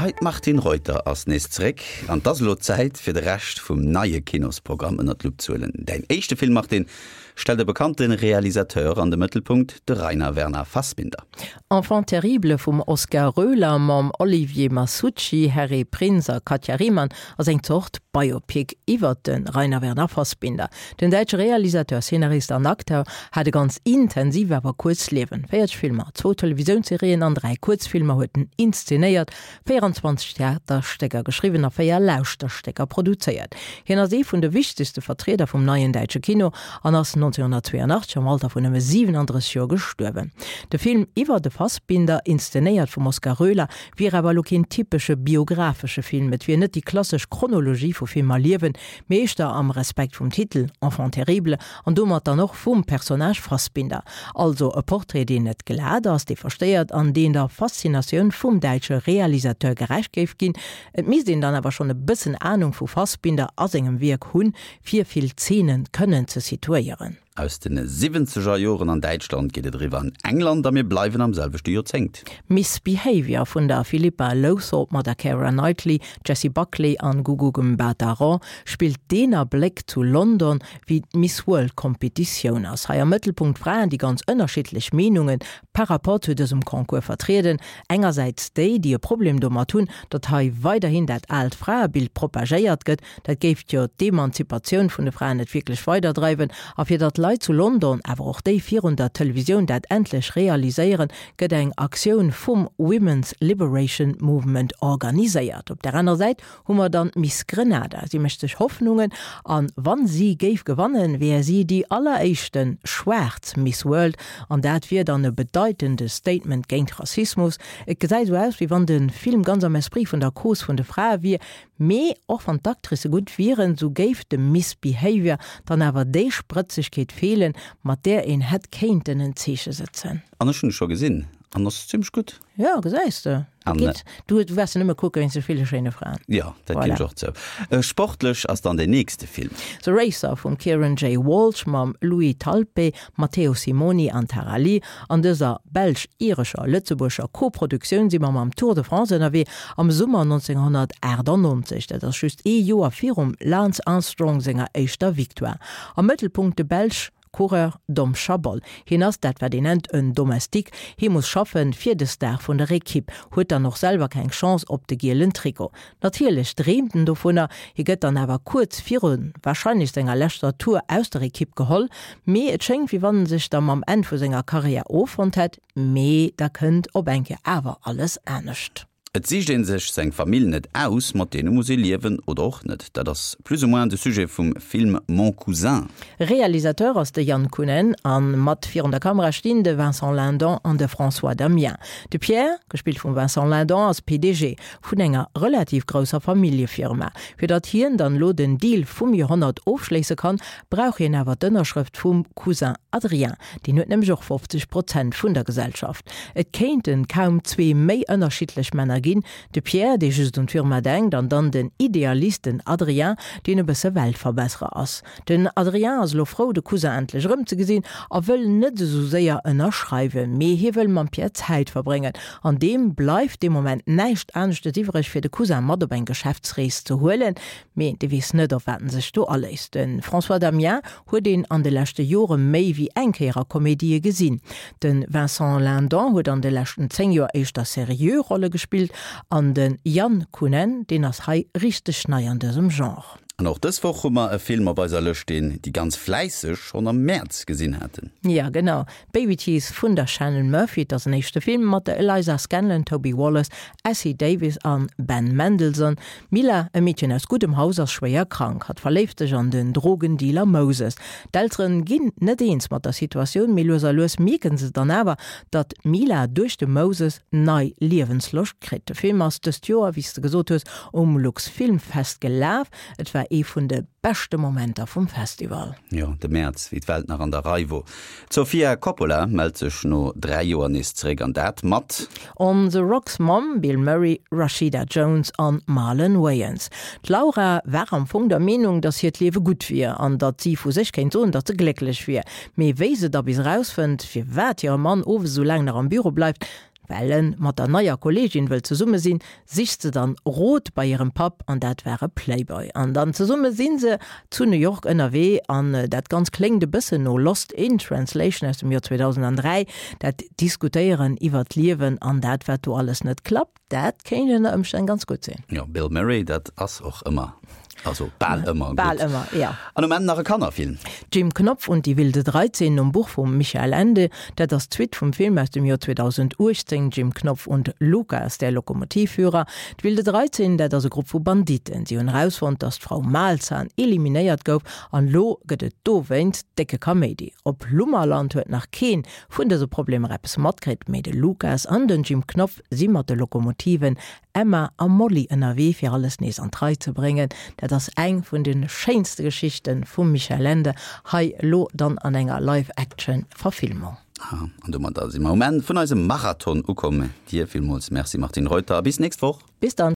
Hei, d'Martine Reuter ass nees zeréck an 't ass elo Zäit fir de Rescht vum neie Kinosprogramm ënnert d'Lupp ze huelen. Däin éischte Film, Martine, stellt e bekannte Realisateur an de Mëttelpunkt, de Rainer Werner Fassbinder. Enfant terrible vum Oskar Roehler mam Olivier Masucci, Harry Prinz a Katja Riemann ass eng Zort Biopic iwwert de Rainer Werner Fassbinder. Den däitsche Realisateur, Szenarist an Acteur hat e ganz intensiv awer kuerzt Liewen. 40 Filmer, zwou Televisiounsserien an 3 Kuerzfilmer huet en inszenéiert, 24 Theaterstécker geschriwwen a 4 Lauschterstécker produzéiert. Hien ass ee vun de wichtegste Vertrieder vum neien däitsche Kino an ass 1982 am Alter vun nëmme 37 Joer gestuerwen. De Film iwwer de Fassbinder, inszenéiert vum Oskar Roehler, wier awer elo keen typesche biographesche Film. Et wier net déi klassesch Chronologie vu Film a Liewen, mee éischter am Respekt vum Titel Enfant terrible an domat dann och vum Personnage Fassbinder. Also e Portrait, deen net glat ass, dee verstéiert an deen der Faszinatioun vum däitsche Realisateur gerecht géif ginn. Et misst een dann awer schonn e bëssen Anung vu Fassbinder a sengem Wierk hunn, fir vill Zeenen kënnen ze situéieren. Aus den siwwenzeger Joren an Däitschland geet et eriwwer an England a mir bleiwen am selwechte Joerzéngt. Miss Behaviour vun der Philippa Lowthorpe mat der Keira Knightley, Jessie Buckley an Gugu Mbatha-Raw spillt deen Abléck zu London, wéi d'Miss World Competitioun ass. Hei am Mëttelpunkt Fraen, déi ganz ënnerschiddlech Meenunge par rapport zu dësem Concours vertrieden. Engersäits déi, déi e Problem domat hunn, datt hei weiderhin dat aalt Fraebild propagéiert gëtt, Dat géif jo d'Emanzipatioun vun de Fraen net wierklech weiderdreiwen. A fir datt d'Leit zu London, awer och déi virun der Televisioun dat endlech realiséieren, gëtt eng Aktioun vum Women's Liberation Movement organiséiert. Op der anerer Säit hu mer dann d'Miss Grenada. Si mécht sech Hoffnungen an wann si géif gewannen, wär si déi alleréischte schwaarz Miss World an dat wier dann e bedeitende Statement géint Rassismus. Et gesäit esou aus, wéi wann de Film ganz am Esprit vun der Cause vun de Frae wier, Mee och wann d'Actricë gutt wieren, sou géif dem Miss Behavior dann awer déi Sprëtzegkeet feelen, mat där een hätt kéinten en Zeeche sëtzen. An ech hunn e scho gesinn an ass zimmlech gutt. Jo, gesäis de, dat geet. Du waars en nëmme kucke wéinst de ville schéine Fraen. Jo, dat ginn ech och zou. Sportlech ass dann deen nächste Film. The Racer vum Kieran J. Walsh mam Louis Talpe, Matteo Simoni an Tara Lee. An dëser belsch-irescher, lëtzebuerger Koproduktioun si mer mam Tour de France ënnerwee am Summer 1998. Dat ass just ee Joer virum Lance Armstrong senger éischter Victoire. Am Mëttelpunkt de Belsch Coureur Dom Chabol. Hien ass dat wat een nennt en Domestique, hie muss schaffen fir de Star vun der Ekipp, huet dann och selwer keng Chance op de gielen Trikot. Natierlech dreemt en dovunner, hie gëtt dann awer kuerz viru warscheinlech senger leschter Tour aus der Ekipp geholl. Mee et schéngt wéi wann en sech da mam Enn vu senger Karriär offonnt hätt. Mee da kënnt op eng Kéier awer alles anescht. Et sicht een sech seng Famill net aus, mat deene muss ee liewen oder och net. Dat ass plus ou moins de Sujet vum Film Mon Cousin. Realisateur ass de Jan Kunen a mat virun der Kamera stinn de Vincent Lindon an de François Damiens. De Pierre, gespillt vum Vincent Lindon, ass PDG vun enger relativ grousser Familljefirma. Fir datt hien dann elo den Deal vum Joerhonnert ofschléisse kann, brauch hien awer d'Ënnerschrëft vum Cousin Adrien. Deen huet nämlech och 50 Prozent vun der Gesellschaft. Et kéinten kaum zwee méi ënnerschiddlech Männer ginn, de Pierre, dee just un d'Firma denkt, an dann den Idealist, den Adrien, deen e bësse Weltverbesserer ass. Den Adrien ass elo frou, de Cousin endlech erëmzegesinn a wëll net esou séier ënnerschreiwen, mee hie wëll mam Pierre Zäit verbréngen. An deem bleift dee Moment näischt aneschtes iwwreg, fir de Cousin mat op eng Geschäftsrees ze huelen. Mee dee weess net, op wat en sech do aléisst. De François Damiens huet een an de leschte Jore méi wéi eng Kéier a Komedië gesinn. De Vincent Lindon huet an de leschten 10 Joer éischter seriö Rolle gespillt an de Jan Kunen, deen ass hei richteg nei an dësem Genre. An och dës Woch hu mer e Film op eiser Lëscht, deen déi ganz Fläisseg schonn am Mäerz gesinn haten. Jo, genau. Babyteeth vun der Shannon Murphy. Et ass en éischte Film mat der Eliza Scanlen, Toby Wallace, Essie Davis an Ben Mendelsohn. D'Mila, e Meedchen aus guddem Haus, ass schwéier krank. Hatt verléift sech an den Drogendealer Moses. D'Elteren ginn net eens mat der Situatioun, mee lues a lues mierken se dann awer, datt d'Mila duerch de Moses nei Liewensloscht kritt. De Film ass dëst Joer, wéi s de gesot hues, um Luxfilmfest gelaf. Et war ee vun de beschte Momenter vum Festival. Jo, de Mäerz, wéi d'Welt nach an der Rei wor. D'Sofia Coppola mellt sech no 3 Joer nees zeréck an dat mat. On the Rocks mam Bill Murray, Rashida Jones an Marlon Wayans. D'Laura war am Fong der Meenung, datt hiert Liewe gutt wier an datt si vu sech kéint soen, datt se glécklech wier. Mee wéi se da bis erausfënnt, firwat hire Mann owes esou laang nach am Büro bleift. Well en mat der neier Kolleegin wëll zesumme sinn, sicht se dann Rot bei hirem Papp, an dat war e Playboy. An dann zesumme si se zu New York ënnerwee, an dat Ganzt kléngt e bëssen no Lost in Translation aus dem Joer 2003, dat Diskutéieren iwwer d'Liewen an dat wat do alles net klappt, dat kéint ënner Ëmstänn ganz gutt sinn. Jo, Bill Murray, dat ass och ëmmer Also bal ëmmer gutt. Bal ëmmer, ja. An um Enn nach e Kannerfilm. Jim Knopf und die wilde 13 nom Buch vum Michael Ende. Dat ass d'Suite vum Film aus dem Joer 2018 Jim Knopf und Lukas, der Lokomotivführer. D'Wilde 13, dat ass e Grupp vu Banditten. Si hunn erausfonnt, datt d'Frau Malzahn eliminéiert gouf an elo gëtt et dowéinst décke Kaméidi. Op Lummerland huet nach keen vun dëse Problemer eppes matkritt, mee de Lukas an den Jim Knopf si mat de Lokomotiven Emma a Molly ënnerwee fir alles nees an d'Rei ze bréngen. Dat ass eng vun de schéinste Geschichte vum Michael Ende, hei elo dann an enger Live-Action Verfilmung. An domadder si mer um Enn vun eisem Marathon ukomm. Dir villmools Merci Martine Reuter a bis nächst Woch. Bis dann.